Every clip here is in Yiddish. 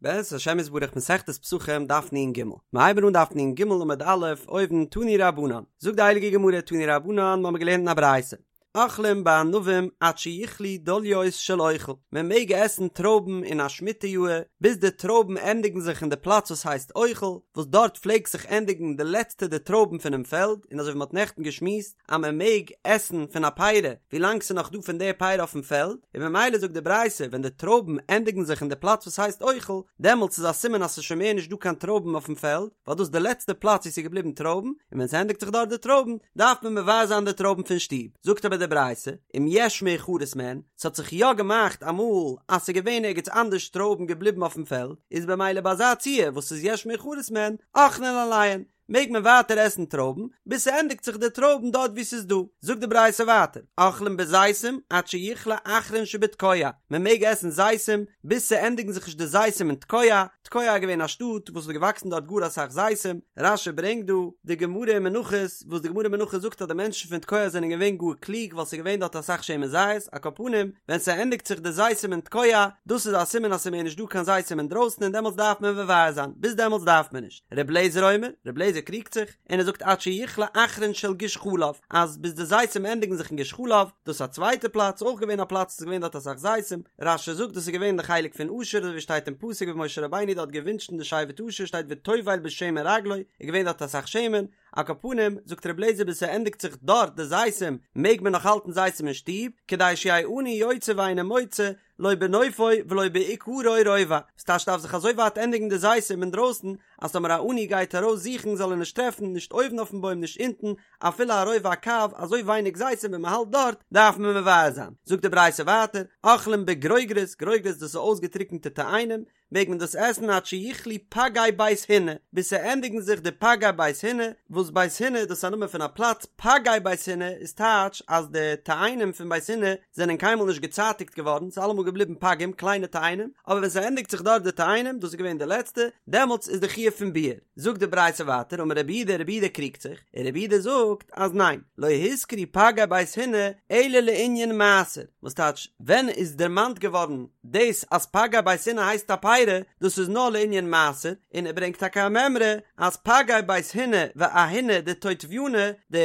בעזרת השם יתברך מסכת פסחים דף נ"ג, מיר הייבן אן דף נ"ג עמוד א', אויבן תנו רבנן, זאגט די הייליגע גמרא תנו רבנן מ'האמיר געלערנט אין א ברייתא, אוכלים בענבים עד שיכלו דליות של אוכל, מען מעג עסן טרויבן אין א שמיטה יאהר ביז די טרויבן ענדיגן זיך אין די פלאץ וואס הייסט אוכל, וואס דארט פלעגט זיך ענדיגן די לעצטע די טרויבן פונעם פעלד, און אזוי ווי מ'האט נעכטן געשמועסט, אז מען מעג עסן פון א פרי ווילאנג ס'איז נאך דא פון די פרי אויפן פעלד, און ממילא זאגט די ברייתא ווען די טרויבן ענדיגן זיך אין די פלאץ וואס הייסט אוכל, דעמאלטס איז א סימן אז ס'איז שוין מער נישט דא קיין טרויבן אויפן פעלד, ווייל דאס איז די לעצטע פלאץ וואו ס'איז געבליבן טרויבן, און ווען ס'ענדיגט זיך דארט די טרויבן, דארף מען מבער זיין די טרויבן פון שטוב. זאגט אבער די ברייתא, אם יש מאוחרות מהן, ס'האט זיך יא געמאכט אמאל אז ס'איז געווען ערגעץ אנדערש טרויבן געבליבן אויפן פעלד, איז במילא ביי אזא ציור וואס ס'איז יש מאוחרות מהן, אוכלין עליהן, מעג מען ווייטער עסן טרויבן ביז ס'ענדיגט זיך די טרויבן דארט וואו ס'איז דא. זאגט די ברייתא ווייטער, אוכלים בזיתים עד שיכלה אחרון שבתקוע, מען מעג עסן זיתים ביז ס'ענדיגן זיך נישט די זיתים אין תקוע, תקוע איז געווען א שטאט וואס האט געוואקסן דארט גאר אסאך זיתים, רש"י ברענגט דא די גמרא אין מנחות וואס די גמרא אין מנחות זאגט אז די מענטשן פון תקוע זענען געווען גאר קלוג ווייל ס'איז געווען דארט אסאך שמן זית, על כל פנים ווען ס'ענדיגט זיך די זיתים אין תקוע, דאס איז א סימן אז ס'איז מער נישט דא קיין זיתים אינדרויסן און דעמאלטס דארף מען מבער זיין, ביז דעמאלטס דארף מען נישט. ר' לעזער אומר, ר' לעזער קריגט זיך, און ער זאגט עד שיכלה אחרון של גוש חלב, אז ביז די זיתים ענדיגן זיך אין גוש חלב, דאס איז א צווייטע פלאץ, אויך געווען א פלאץ וואס איז געווען דארט אסאך זיתים, רש"י זאגט דאס איז געווען די חלק פון אשר אזוי ווי שטייט אין פסוק ווי משה רבינו דארט געווינטשן די שבט אשר שטייט וטובל בשמן רגלו, איז געווען דארט אסאך שמן, על כל פנים, זאגט ר' לעזער ביז ס'ענדיגט זיך דארט די זיתים מעג מען נאך האלטן זיתים אין שטוב, כדי שיהא עני יוצא ואינו מוצא, לא בנופו ולא בעיקרו רובע, ס'טייטש דארף זיך אזוי ווייט ענדיגן די זיתים אינדרויסן אז טאמער א עני גייט ארויס זוכן זאל ער נישט טרעפן נישט אויבן אויפן בוים נישט אונטן אפילו א רובע הקב אזוי ווייניג זיתים ווען מ'האלט דארט דארף מען מבער זיין. זאגט די ברייתא ווייטער, אוכלים בגרוגרות, גרוגרות דאס איז אויסגעטריקענטע תאנים, מעג מען דאס עסן עד שיכלו פגי בית הינא, ביז ס'ענדיגן זיך די פגי בית הינא, וואס בית הינא דאס איז א נאמען פון א פלאץ, פגי בית הינא איז טייטש אז די תאנים פון בית הינא זענען קיינמאל נישט געצייטיגט געווארן, ס'איז אלעמאל געבליבן פגים, קליינע תאנים, אבער ווען ס'ענדיגט זיך דארט די תאנים, דאס איז געווען די לעצטע, דעמאלטס איז די חיוב פון ביעור. זאגט די ברייתא ווייטער, אמר רבי יהודה, רבי יהודה קריגט זיך, און רבי יהודה זאגט אז ניין, לא הוזכרו פגי בית הינא אלא לענין מעשר, וואס טייטש, ווען איז דערמאנט געווארן דאס אז פגי בית הינא הייסט א פרי, דאס איז נאר לענין מעשר, און ער ברענגט טאקע א מימרא אז פגי בית הינא ואהיני דטוטבינא, די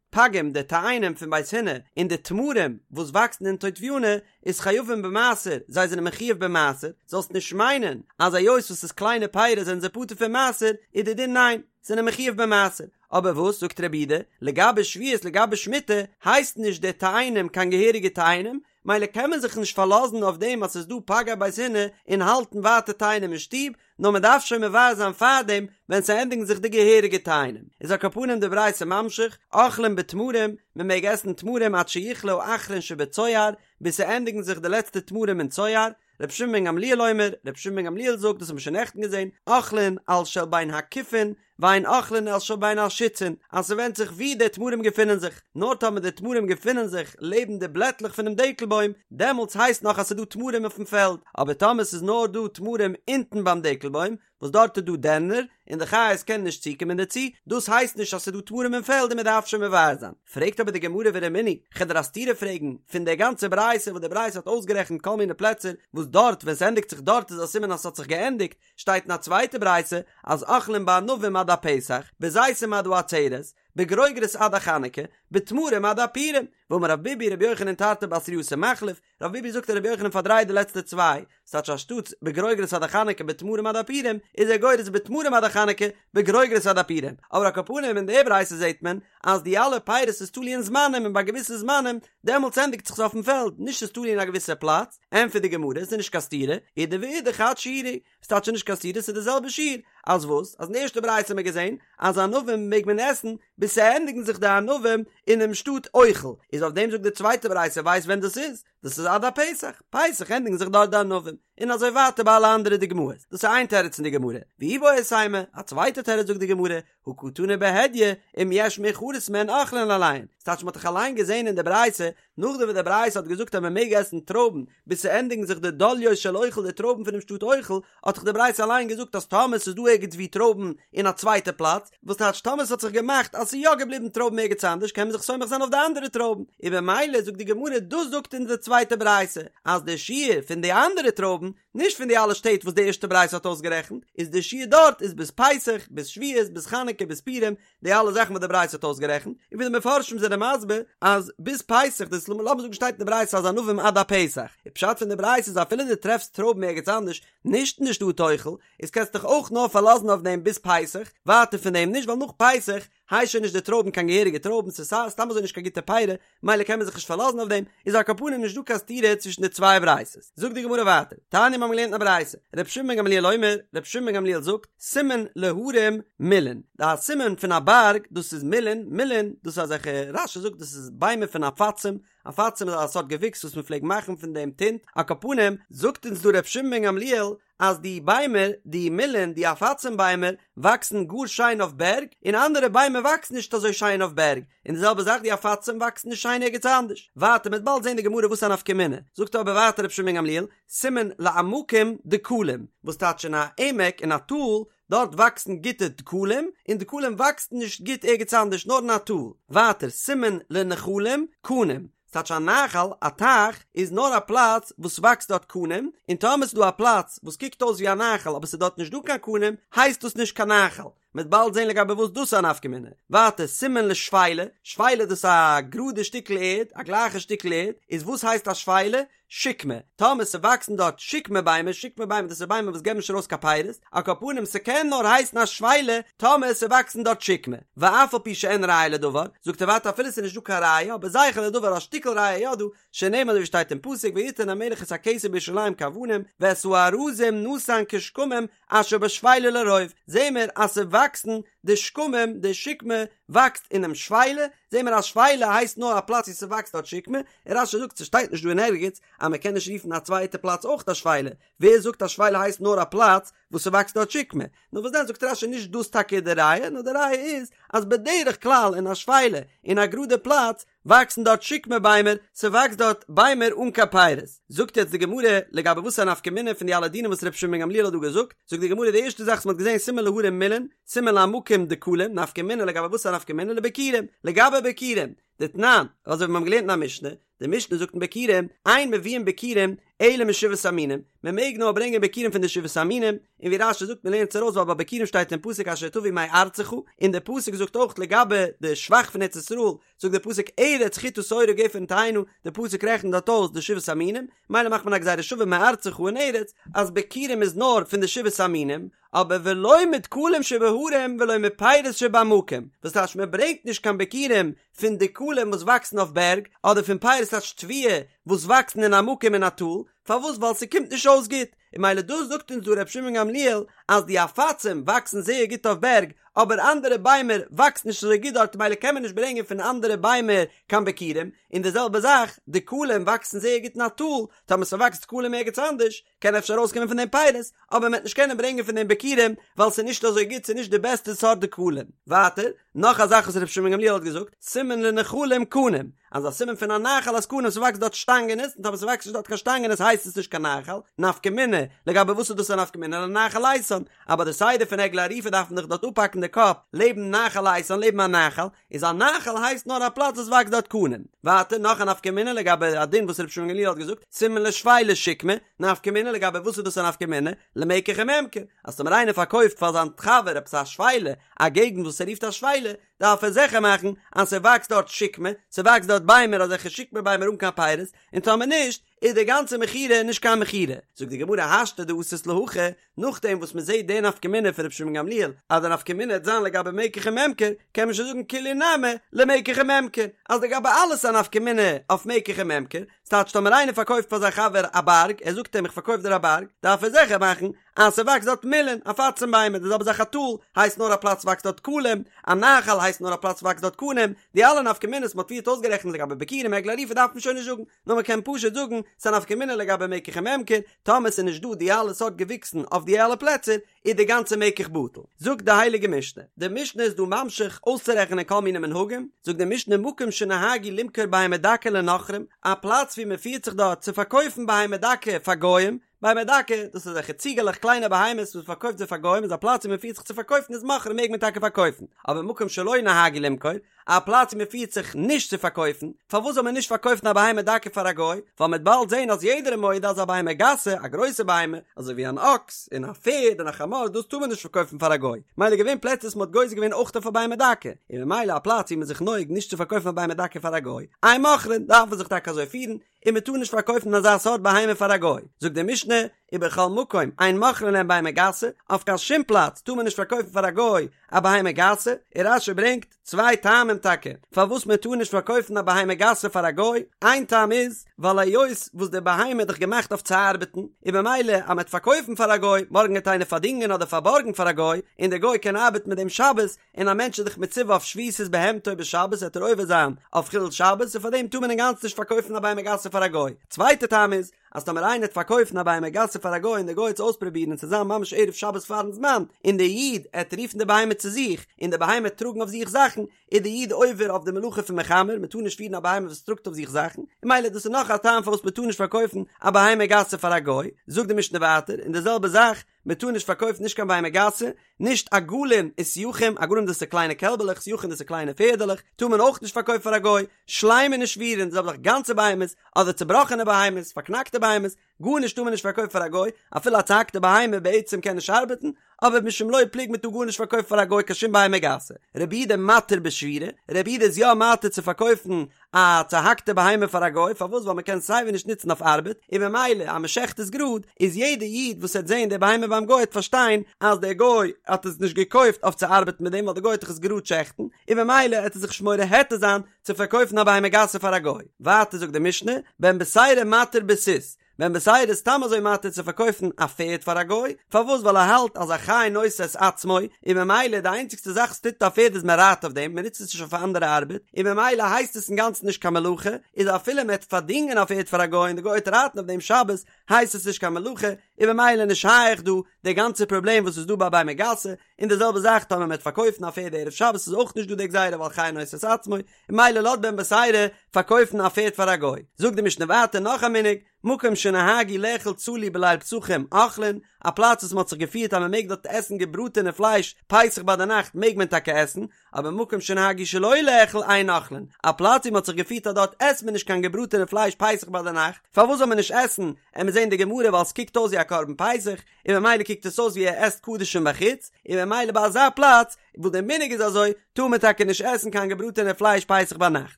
פגים די תאנים פון בית הינא און די תמרים וואס וואקסן אין טוטבינא איז חייבים במעשר, זיי זענען מחויב במעשר, זאלסט נישט מיינען אז היות וואס ס'איז קליינע פירות זענען זיי פטור פון מעשר, איז די דין ניין, זענען מחויב במעשר. אבער וואס זאגט רבי יהודה, לגבי שביעית לגבי שמיטה הייסט נישט די תאנים קיין געהעריגע תאנים, מילא קען מען זיך נישט פארלאזן אויף דעם אז ס'איז דא פגי בית הינא און האלטן ווייטער תאנים אין שטוב, נאר מען דארף שוין מבער זיין פארדעם ווען ס'ענדיגן זיך די געהעריגע תאנים. איז על כל פנים די ברייתא ממשיך, אוכלים בתמרים, מען מעג עסן תמרים עד שיכלה האחרון שבצוער, ביז ס'ענדיגן זיך די לעצטע תמרים אין צוער, רבי שמעון בן גמליאל אומר, רבי שמעון בן גמליאל זאגט, דאס האבן מיר שוין נעכטן געזען, אוכלין על של בין הכיפין, ואין אוכלין על של בין השיצין, אז ס'ווענדט זיך וואו די תמרים געפינען זיך, נאר טאמער די תמרים געפינען זיך לעבן די בלעטלעך פונעם דקל בוים, דעמאלטס הייסט נאך אז ס'איז דא תמרים אויפן פעלד, אבער טאמער ס'איז נאר דא תמרים אונטן ביים דקל בוים, וואס דארט איז דא דערנער, און די חיות קענען נישט צוקומען דערצו, דאס הייסט נישט אז ס'איז דא תמרים אין פעלד און מ'דארף שוין מבער זיין. פרעגט אבער די גמרא ורמינהי, כ'וועל דיר א סתירה פרעגן, פון דער גאנצער ברייתא וואס די ברייתא האט אויסגערעכנט כל מיני פלעצער וואס דארט ווען ס'ענדיגט זיך דארט איז א סימן אז ס'האט זיך געענדיגט, שטייט אין א צווייטע ברייתא אז אוכלים בענבים עד הפסח, בזיתים עד העצרת, בגרוגרות עד החנוכה, בתמרים עד הפורים, ואמר רב ביבי רבי יוחנן תרתי בתרייתא מחליף, רב ביבי זאגט אז רבי יוחנן פארדרייט די לעצטע צוויי, ס'טייטש אנשטאטס בגרוגרות עד החנוכה בתמרים עד הפורים, איז ער גורס בתמרים עד החנוכה בגרוגרות עד הפורים, אבער על כל פנים אין די ברייתא זעט מען אז די אלע פירות איז תלוי אין זמנים און ביי געוויסע זמנים דעמאלטס ענדיגט זיך עס אויפן פעלד, נישט ס'איז תלוי אין א געוויסע פלאץ, ענטפערט די גמרא ס'איז נישט קיין סתירה, אידי ואידי חד שיעורא, ס'טייטש נישט קיין סתירה ס'איז די זעלבע שיעור, אז וואס? אז אין די ערשטע ברייתא האט מען געזען אז ענבים מעג מען עסן ביז ס'ענדיגן זיך די ענבים אינעם שטאט אוכל, איז אויף דעם זאגט די צווייטע ברייתא ווייסט ווען דאס איז? דאס איז עד הפסח, פסח ענדיגן זיך דארט די ענבים, און אזוי ווייטער ביי אלע אנדערע דוגמאות, דאס איז איין תירוץ אין די גמרא, ואיבעית אימא, א צווייטע תירוץ זאגט די גמרא, הא קתני בהדיא, אם יש מאוחרות מהן אוכלין עליהן, ס'טייטש מ'האט דאך אליין געזען אין די ברייתא, נאכדעם וואס די ברייתא האט געזאגט אז מ'מעג עסן טרויבן ביז ס'ענדיגן זיך די דליות של אוכל די טרויבן פונעם שטאט אוכל, האט דאך די ברייתא אליין געזאגט אז טאמער ס'איז דא ערגעץ ווי טרויבן אין א צווייטע פלאץ, וואס טייטש טאמער ס'האט זיך געמאכט אז ס'איז יא געבליבן טרויבן ערגעץ אנדערש קען מען זיך סומך זיין אויף די אנדערע טרויבן, און במילא זאגט די גמרא דאס זאגט אונז די. צווייטע ברייתא, אז די שיעור פון די אנדערע טרויבן, נישט פון די אלע שטעט וואס די ערשטע ברייתא האט אויסגערעכנט, איז די שיעור דארט איז ביז פסח, ביז שבועות, ביז חנוכה, ביז פורים, די אלע זאכן וואס די ברייתא האט אויסגערעכנט, און ווי די מפרשים זענען מסביר אז ביז פסח, דאס לאמיר זאגן שטייט אין די ברייתא אז ענבים עד הפסח, די פשט פון די ברייתא איז אפילו דו טרעפסט טרויבן ערגעץ אנדערש, נישט אין די שטאט אוכל, איז קענסט דיך אויך נאר פארלאזן אויף דעם ביז פסח, ווייטער פון דעם נישט ווייל נאך פסח הייסט שוין נישט די טרויבן קיין געהעריגע טרויבן ס'איז סתם אזוי נישט קיין גוטע פירות, מילא קען מען זיך נישט פארלאזן אויף דעם, איז על כל פנים נישט דא קיין סתירה צווישן די צוויי ברייתות. זאגט די גמרא ווייטער, תניא מיר האבן געלערנט אין א ברייתא, רבי שמעון בן גמליאל אומר, רבי שמעון בן גמליאל זאגט, סימן להרים מילין, די סימן פון א בארג דאס איז מילין, מילין דאס איז אזעלכע, רש"י זאגט דאס איז ביימער פון עפצים, עפצים איז א סארט געוויקס וואס מען פלעגט מאכן פון דעם טינט, על כל פנים, זאגט אונז דא רבי שמעון בן גמליאל, אז די ביימער, די מילין, די עפצים ביימער, וואקסן גאר שיין אויף בערג, און אנדערע ביימער וואקסן נישט אזוי שיין אויף בערג, און די זעלבע זאך די עפצים וואקסן נישט שיין ערגעץ אנדערש. ווייטער מ'וועט באלד זען די גמרא וואס איז א נפקא מינה, זאגט אבער ווייטער רבי שמעון בן גמליאל, סימן לעמקים דקלים, וואס טייטש אין א עמק אין א טאל, דארט וואקסן גוטע דקלים, און דקלים וואקסן נישט גוט ערגעץ אנדערש נאר אין א טאל. ווייטער סימן לנחלים קנים, ס'טייטש א נחל, א טייך, איז נאר א פלאץ וואס וואקסט דארט קנים, און טאמער ס'איז דא א פלאץ וואס קוקט אויס ווי א נחל אבער ס'איז דארט נישט דא קיין קנים, הייסט דאס נישט קיין נחל. מ'וועט באלד זען לגבי וואס דאס איז א נפקא מינה. ווייטער, סימן לשפלה, שפלה דאס איז א גראדע שטיקל ערד, א גלייכע שטיקל ערד, איז וואס הייסט א שפלה? שקמה, טאמער ס'וואקסן דארט שקמה ביימער, שקמה ביימער דאס איז ביימער וואס געבן נישט ארויס קיין פירות, על כל פנים ס'קען נאר הייסן א שפלה טאמער ס'וואקסן דארט שקמה, ואף על פי שאין ראיה לדבר, זאגט ער ווייטער אפילו ס'איז נישט דא קיין ראיה אבער זכר לדבר א שטיקל ראיה יא דא, שנאמר אזוי ווי שטייט אין פסוק ויתן המלך את הכסף בירושלים כאבנים ואת הארזים נתן כשקמים אשר בשפלה לרוב, זעהן מיר אז ס'וואקסן די שקמים, די שקמה וואקסט אינעם שפלה, זעהן מיר אז שפלה הייסט נאר א פלאץ ווי ס'וואקסט דארט שקמה, און רש"י זאגט ס'שטייט נישט דא אין ערגעץ אז מ'קען נישט רופן א צווייטע פלאץ אויך א שפלה, ווער זאגט אז שפלה הייסט נאר א פלאץ וואס ס'וואקסט דארט שקמה? נאר וואס דען זאגט רש"י נישט דאס טאקע איז די ראיה, נאר די ראיה איז אז בדרך כלל אין א שפלה אין א גראדע פלאץ וואקסן דארט שקמה ביימער, ס'וואקסט דארט ביימער אן קיין פירות. זאגט יעצט די גמרא, לגבי וואס איז א נפקא מינה פון די אלע דינים וואס רבי שמעון בן גמליאל האט דא געזאגט, זאגט די גמרא די ערשטע זאך וואס מ'האט געזען סימן להרים מילין, סימן לעמקים דקלים, נפקא מינה לגבי וואס איז א נפקא מינה לביכורים, לגבי ביכורים, דתנן, אזוי ווי מיר האבן געלערנט אין א משנה, די משנה זאגט אין ביכורים, אין מביאין ביכורים אלא משבעת המינים, מען מעג נאר ברענגען ביכורים פון די שבעת המינים, און ווי רש"י זאגט מען לערנט עס ארויס ווייל ביי ביכורים שטייט אין פסוק אשר תביא מארצך, און די פסוק זאגט אויך לגבי די שבח פון ארץ ישראל, זאגט די פסוק ארץ חטה שעורה גפן תאנה, די פסוק רעכנט דארט אויס די שבעת המינים, מילא מאכט מען א גזירה שווה מארצך און ארץ, אז ביכורים איז נאר פון די שבעת המינים, אבער ולא מדקלים שבהרים ולא מפירות שבעמקים, וואס טייטש מען ברענגט נישט קיין ביכורים פון דקלים וואס וואקסן אויף בערג, אדער פון פירות טייטש תבואה וואס וואקסן אין עמקים אין א טאל, פארוואס ווייל ס'קומט נישט אויס גוט, און מילא דאס זאגט אונז דא ר' שמעון גמליאל אז די עפצים וואקסן זייער גוט אויף בערג, אבער אנדערע ביימער וואקסן נישט אזוי גוט דארט מילא קען מען נישט ברענגען פון אנדערע ביימער קיין ביכורים, און די זעלבע זאך דקלים וואקסן זייער גוט אין א טאל, טאמער ס'וואקסט דקלים ערגעץ אנדערש, קען אפשר ארויסקומען פון דעם פירות, אבער מ'וועט נישט קענען ברענגען פון דעם ביכורים, ווייל ס'איז נישט אזוי גוט, ס'איז נישט די בעסטע סארט דקלים. ווייטער, נאך א זאך וואס רבי שמעון גמליאל האט געזאגט, סימן לנחלים קנים, אז א סימן פון א נחל איז קנים, ס'וואקסט דארט שטאנגענעס, און טאמער ס'וואקסט נישט דארט קיין שטאנגענעס הייסט עס נישט קיין נחל, נפקא מינה, לגבי וואס איז דאס א נפקא מינה לנחל איתן, אז ביי די סדר פון עגלה ערופה דארף מען דאך דארט אפהאקן די קאפ לעבן נחל איתן, לעבן א נחל, איז א נחל הייסט נאר א פלאץ וואס וואקסט דארט קנים. ווייטער נאך א נפקא מינה לגבי א דין וואס רבי שמעון גמליאל האט געזאגט, סימן לשפלה שקמה, נפקא מינה לגבי וואס איז דאס א נפקא מינה, למקח וממכר, אז טאמער איינער פארקויפט פאר זיין חבר עפעס א שפלה, א געגנט וואס ער רופט א שפלה, דארף ער זיכער מאכן אז ס'וואקסט דארט שקמה, ס'וואקסט דארט ביימער אזעלכע שקמה ביימער אן קיין פירות, און טאמער נישט, איז די גאנצע מכירה נישט קיין מכירה. זאגט די גמרא השתא דאתית להכי, נאכדעם וואס מען זעט די נפקא מינה פון רבי שמעון גמליאל אז די נפקא מינה וועט זיין לגבי מקח וממכר, קען מען שוין זאגן כולהו נמי למקח וממכר, אז לגבי אלעס איז א נפקא מינה אויף מקח וממכר, ס'טייטש טאמער איינער פארקויפט פאר זיין חבר א בארג, ער זאגט אים איך פארקויף דיר א בארג, דארף ער זיכער מאכן אז ס'וואקסט דארט מילין, עפצים ביימער, די זעלבע זאך א טאל הייסט נאר א פלאץ וואקסט דארט דקלים, א נחל הייסט נאר א פלאץ וואקסט דארט קנים, די אלע נפקא מינות מ'האט פריערט אויסגערעכנט לגבי ביכורים עגלה ערופה דארף מען שוין נישט זאגן, נאר מען קען פשוט זאגן ס'איז א נפקא מינה לגבי מקח וממכר, טאמער ס'איז נישט דא די אלע סארט געוויקסן אויף די אלע פלעצער, איז די גאנצע מקח בטל. זאגט די הייליגע משנה, די משנה איז דא ממשיך אויסצורעכענען כל מיני מנהגים, זאגט די משנה מקום שנהגו למכור בהמה דקה לנכרים, א פלאץ ווי מען פירט זיך דארט צו פארקויפן בהמה דקה פאר גוים, בהמה דקה, דאס איז אזעלכע ציגעלעך קליינע בהמות וואס מען פארקויפט זיי פאר גוים איז א פלאץ ווי מען פירט זיך צו פארקויפן איז מוכרין מעג מען טאקע פארקויפן, אבער מקום שלא נהגו למכור, א פלאץ ווי מען פירט זיך נישט צו פארקויפן, פארוואס זאל מען נישט פארקויפן א בהמה דקה פאר א גוי, ווייל מ'עט באלד זען אז יעדער איז מודה אז א בהמה גסה, א גרויסע בהמה, אזוי ווי אן אקס, און א פערד, און א חמור, דאס טאר מען נישט פארקויפן פאר א גוי, מילא געווען פלעצער וואס מען האט גוזר געווען אויך אויף א בהמה דקה, און ממילא א פלאץ ווי מען איז זיך נוהג נישט צו פארקויפן א בהמה דקה פאר א גוי, אין מוכרין, דארף מען זיך טאקע אזוי פירן, און מען טאר נישט פארקויפן אזא סארט בהמה פאר א גוי, זאגט די משנה, ובכל מקום אין מוכרין להם בהמה גסה, אויף קיין שום פלאץ טאר מען נישט פארקויפן פאר א גוי א בהמה גסה, און רש"י ברענגט צוויי טעמים טאקע פארוואס מען טאר נישט פארקויפן א בהמה גסה פאר א גוי, איין טעם איז, ווייל היות וואס די בהמה איז דאך געמאכט אויף צו ארבעטן, און במילא אז מען וועט פארקויפן פאר א גוי, מארגן גייט איינער פארדינגען אדער פארבארגן פאר א גוי, און דער גוי קען ארבעטן מיט דעם שבת, און א מענטש איז דאך מצווה אויף שביתת בהמתו בשבת וועט ער עובר זיין אויף חילול שבת און פאר דעם טאר מען אינגאנצן נישט פארקויפן א בהמה גסה פאר א גוי. צווייטע טעם איז, אז טאמער איינער וועט פארקויפן א בהמה גסה פאר א גוי און דער גוי וועט עס אויספרובירן און ס'וועט זיין ממש ערב שבת פארן זמן און דער איד עט רופן די בהמה צו זיך און די בהמה עט טראגן אויף זיך זאכן איז דער איד עובר אויף די מלאכה פון מחמר מען טאר נישט פירן א בהמה וואס טראגט אויף זיך זאכן און ממילא דאס איז נאך א טעם פארוואס מען טאר נישט פארקויפן א בהמה גסה פאר א גוי. זאגט די משנה ווייטער און די זעלבע זאך מען טאר נישט פארקויפן נישט קיין בהמה גסה, נישט עגלים וסייחים, עגלים דאס איז קליינע קעלבעלעך, סייחים דאס איז קליינע פערדעלעך, טאר מען אויך נישט פארקויפן פאר א גוי, שלימין ושבורין, די זעלבע זאך גאנצע בהמות, אדער צובראכענע בהמות, פארקנאקטע בהמות, גארנישט טאר מען נישט פארקויפן פאר א גוי, אפילו א צוהאקטע בהמה בעצם קען נישט ארבעטן, אבער משום לא פלוג מען טאר גארנישט פארקויפן פאר א גוי קיין שום בהמה גסה. רבי יהודה מתיר בשבורה, רבי יהודה איז יא מתיר צו פארקויפן א צוהאקטע בהמה פאר א גוי, פארוואס ווייל מען קען סייווי נישט נוצן אויף ארבעט, און ממילא אז מען שעכט עס גראד, איז יעדע איד וואס העט זען די בהמה ביים גוי העט פארשטיין אז דער גוי האט עס נישט געקויפט אויף צו ארבעטן מיט דעם ווייל דער גוי העט דאך עס גראד שעכטן, און ממילא העט ער זיך נישט מורה היתר זיין צו פארקויפן א בהמה גסה פאר א גוי. ווייטער זאגט די משנה, בן בתירא מתיר בסוס, בן בתירא איז סתם אזוי מתיר צו פארקויפן א פערד פאר א גוי, פארוואס ווייל ער האלט אז החי נושא את עצמו, און ממילא די איינציגסטע זאך וואס טוט א פערד איז מען רייט אויף דעם, מען נוצט עס נישט אויף אנדערע ארבעט, און ממילא הייסט עס אינגאנצן נישט קיין מלאכה, איז אפילו מען וועט פארדינגען א פערד פאר א גוי און די גוי וועט רייטן אויף דעם שבת, הייסט עס נישט קיין מלאכה, און ממילא נישט שייך דא די גאנצע פראבלעם וואס איז דא ביי בהמה גסה, און די זעלבע זאך טאמער מען וועט פארקויפן א פערד ערב שבת איז אויך נישט דא די גזירה ווייל חי נושא את עצמו, ממילא לאזט בן בתירא פארקויפן א פערד פאר א גוי. זאגט די משנה ווייטער נאך א מנהג, מקום שנהגו לאכול צלי בליל פסחים אוכלין, א פלאץ וואס מען האט זיך געפירט אז מען מעג דארט עסן געבראטענע פלייש פסח ביי די נאכט מעג מען טאקע עסן, אבער מקום שנהגו שלא לאכול אין אוכלין, א פלאץ ווי מען האט זיך געפירט אז דארט עסט מען נישט קיין געבראטענע פלייש פסח ביי די נאכט, פארוואס זאל מען נישט עסן, עמיר זעהן די גמרא ווייל ס'קוקט אויס ווי א קרבן פסח, און ממילא קוקט עס אויס ווי ער עסט קדשים בחוץ, און ממילא ביי אזא פלאץ וואס דער מנהג איז אזוי, טאר מען טאקע נישט עסן קיין געבראטענע פלייש פסח ביינאכט.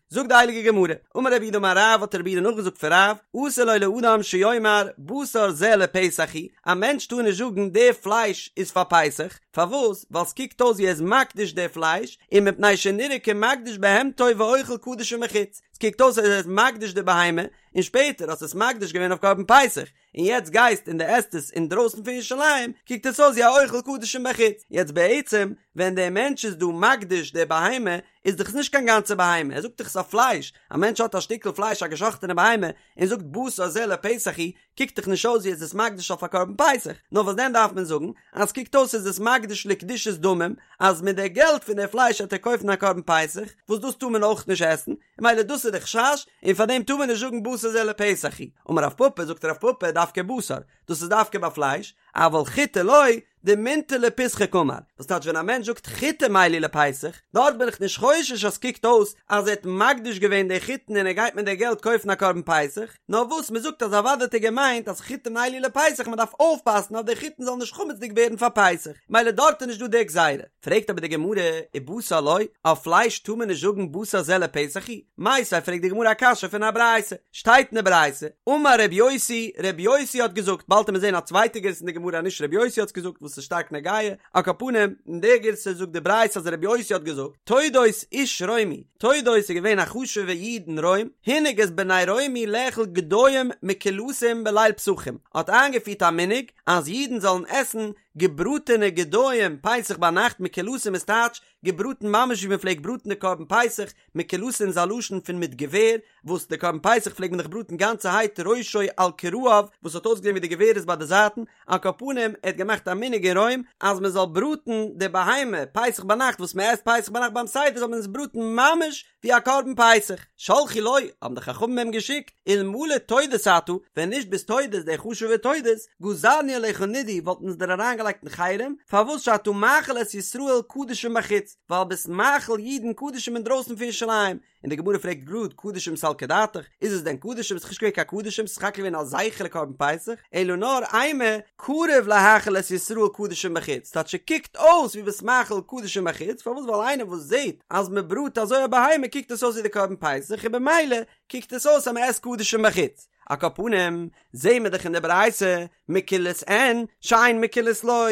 זאגט די הייליגע גמרא, אמר רב יהודה אמר רב, האט רב יהודה נאכגעזאגט פון רב, אסור לו לאדם שיאמר בשר זה לפסח הוא, א מענטש טאר נישט זאגן די פלייש איז פאר פסח, פארוואס? ווייל ס'קוקט אויס ווי ער איז מקדיש די פלייש, און מפני שנראה כמקדיש בהמתו ואוכל קדשים בחוץ, ס'קוקט אויס אז ער איז מקדיש די בהמה, און שפעטער האסט עס מקדיש געווען אויף קרבן פסח, און יעצט גייסט און דו עסט עס אינדרויסן פון ירושלים, קוקט עס אויס ווי א אוכל קדשים בחוץ. יעצט בעצם, ווען דער מענטש איז דא מקדיש די בהמה, איז דאך עס נישט קיין גאנצע בהמה, ער זאגט דאך עס איז א פלייש, א מענטש האט א שטיקל פלייש א געשאכטענע בהמה, און זאגט בשר זה לפסח הוא, קוקט דאך נישט אויס ווי ער איז עס מקדיש אויף א קרבן פסח, נאר וואס דען דארף מען זאגן, אז ס'קוקט אויס איז עס מקדיש לקדושת דמים, אז מיט די געלט פון די פלייש וועט ער קויפן א קרבן פסח, וואס דאס טאר מען אויך נישט עסן, ממילא דאס איז די חשש, און פאר דעם טאר מען נישט זאגן בשר זה לפסח הוא. אמר רב פפא, זאגט רב פפא, דווקא בשר, דאס איז דווקא ביי פלייש, אבל חיטי לא, דמינטר לפיסחא קאמר, וואס טייטש ווען א מענטש זאגט חיטים אלו לפסח, דארט בין איך נישט חושש אז ס'קוקט אויס אז ער האט מקדיש געווען די חיטן און ער גייט מיט די געלט קויפן א קרבן פסח, נאר וואס מען זאגט אז אוודאי האט ער געמיינט אז חיטים אלו לפסח מען דארף אויפפאסן אז די חיטן זאלן נישט חמצ'דיג ווערן פאר פסח, ממילא דארט איז נישט דא די גזירה. פרעגט אבער די גמרא, ובשר לא, אויף פלייש טאר מען נישט זאגן בשר זה לפסח הוא? מיתיבי פרעגט די גמרא א קשיא פון א ברייתא, שטייט אין די ברייתא, אמר ר' יוסי, ר' יוסי האט געזאגט, באלד וועט מען זען א צווייטע גירסא אין די גמרא אז נישט ר' יוסי האט עס געזאגט וואס איז שטארק נוגע, על כל פנים, אין די גירסא זאגט די ברייתא אז ר' יוסי האט געזאגט, תודוס איש רומי, תודוס איז געווען א חשוב'ע איד אין רוים, הנהיג את בני רומי לאכול גדיים מקולסין בליל פסחים, האט איינגעפירט א מנהג אז אידן זאלן עסן. געבראטענע גדיים פסח ביינאכט מקולסין איז טייטש געבראטן ממש ווי מען פלעגט בראטן די קרבן פסח, מקולסין איז א לשון פון מיט געווער, וואס די קרבן פסח פלעגט מען דאך בראטן גאנצערהייט ראשו על כרעיו וואס האט אויסגעזען ווי די געווער איז ביי די זייטן, על כל פנים ער האט געמאכט א מנהג אין רוים אז מען זאל בראטן די בהמה פסח ביינאכט וואס מען עסט פסח ביינאכט ביים סדר זאל מען עס בראטן ממש ווי א קרבן פסח. שלחו לו, האבן די חכמים אים געשיקט, אלמלא תודוס אתה, ווען נישט ביסט תודוס דער חשוב'ער תודוס, גזרנו עליך נידוי וואלטן אונז דיר אריינגעלייגט אין חרם, פארוואס שאתה מאכיל את ישראל קדשים בחוץ, ווייל ביסט מאכיל אידן קדשים אינדרויסן פון ירושלים, און די גמרא פרעגט גראד קדשים סלקא דעתך, איז עס דען קדשים? ס'איז נישט געווען קיין קדשים, ס'איז סך הכל געווען א זכר לקרבן פסח, אלא נאר אימא קרוב להאכיל את ישראל קדשים בחוץ, טייטש ס'קוקט אויס ווי ביסט מאכיל קדשים בחוץ, פארוואס ווייל איינער וואס זעט אז מ'בראט אזוי א בהמה קוקט עס אויס ווי די קרבן פסח און במילא קוקט עס אויס אז מ'עסט קדשים בחוץ. על כל פנים, זעהן מיר דאך אין די ברייתא, מקולס אין, שאין מקולס לא,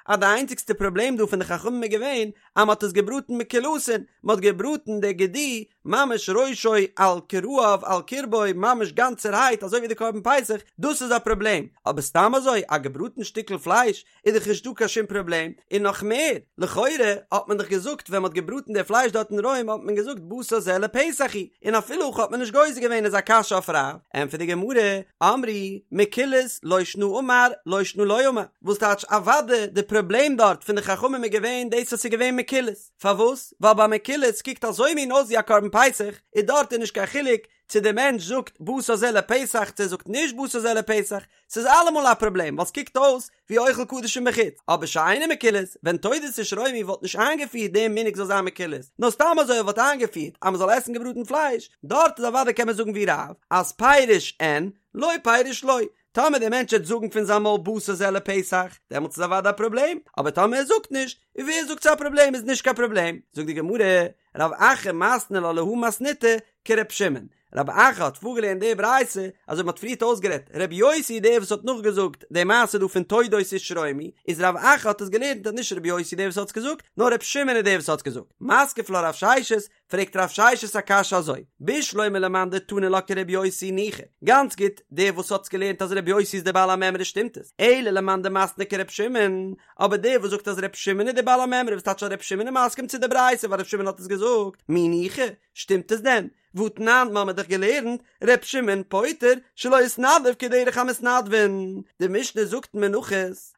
אז די איינציגסטע פראבלעם דא פון די חכמים איז געווען אז מ'האט עס געבראטן מקולסין, מ'האט געבראטן די גדי ממש ראשו על כרעיו על קרבו ממש גאנצערהייט אזוי ווי די קרבן פסח, דאס איז א פראבלעם, אבער סתם אזוי א געבראטן שטיקל פלייש איז דאך נישט דא קיין שום פראבלעם, און נאך מער, לכאורה האט מען דאך געזאגט ווען מ'האט געבראטן די פלייש דארט אין רוים האט מען געזאגט בשר זה לפסח הוא, און אפילו הכי האט מען נישט גוזר געווען איז א קשיא אויף רב, ענטפערט די גמרא, אמרי, מקולס, לא שנא אמר, לא שנא לא אמר, וואס טייטש אוודאי די פראבלעם דארט פון די חכמים איז געווען דאס אז ס'איז געווען מקולס, פארוואס? ווייל ביי מקולס קוקט אזוי מין אויס ווי א קרבן פסח, איז דארט איז נישט קיין חילוק צו די מענטש זאגט בשר זה לפסח צו ער זאגט נישט בשר זה לפסח, ס'איז אלעמאל א פראבלעם ווייל ס'קוקט אויס ווי אוכל קדשים בחוץ, אבער שאינו מקולס, ווען תודוס איש רומי וואלט נישט איינגעפירט דעם מנהג זאל זיין מקולס, נאר סתם אזוי ער וואלט איינגעפירט אז מ'זאל עסן געבראטן פלייש, דארט איז אוודאי קען מען זאגן ווי רב אז פירש אין, לא פירש לא, טאמער דער מענטש וועט זאגן פון זיין מויל בשר זה לפסח, דעמאלטס איז אוודאי א פראבלעם, אבער טאמער ער זאגט נישט, און ווער זאגט ס'איז א פראבלעם איז נישט קיין פראבלעם, זאגט די גמרא, רב אחא מתני לה להא מתניתא כר' שמעון, רב אחא האט פארגעלערנט די ברייתא אזוי ווי מ'האט פריערט אויסגערעדט, ר' יוסי דער וואס האט נאכגעזאגט די מעשה דא פון תודוס איש רומי, איז רב אחא האט עס געלערנט אז נישט ר' יוסי דער וואס האט עס געזאגט, נאר ר' שמעון איז דער וואס האט עס געזאגט. מתקיף לה רב ששת, פרעגט רב ששת א קשיא אזוי, בשלמא למאן דתני לה כר' יוסי ניחא, גאנץ גוט, דער וואס האט עס געלערנט אז ר' יוסי איז דער בעל המימרא שטימט עס, אלא למאן דמתני כר' שמעון, אבער דער וואס זאגט אז ר' שמעון איז דער בעל המימרא וואס טייטש אז ר' שמעון איז מסכים צו די ברייתא ווייל ר' שמעון האט עס געזאגט, מי ניחא, שטימט עס דען? והתנן, מ'האמיר דאך געלערנט, ר' שמעון פוטר שלא התנדב כדרך המתנדבין, די משנה זאגט אין מנחות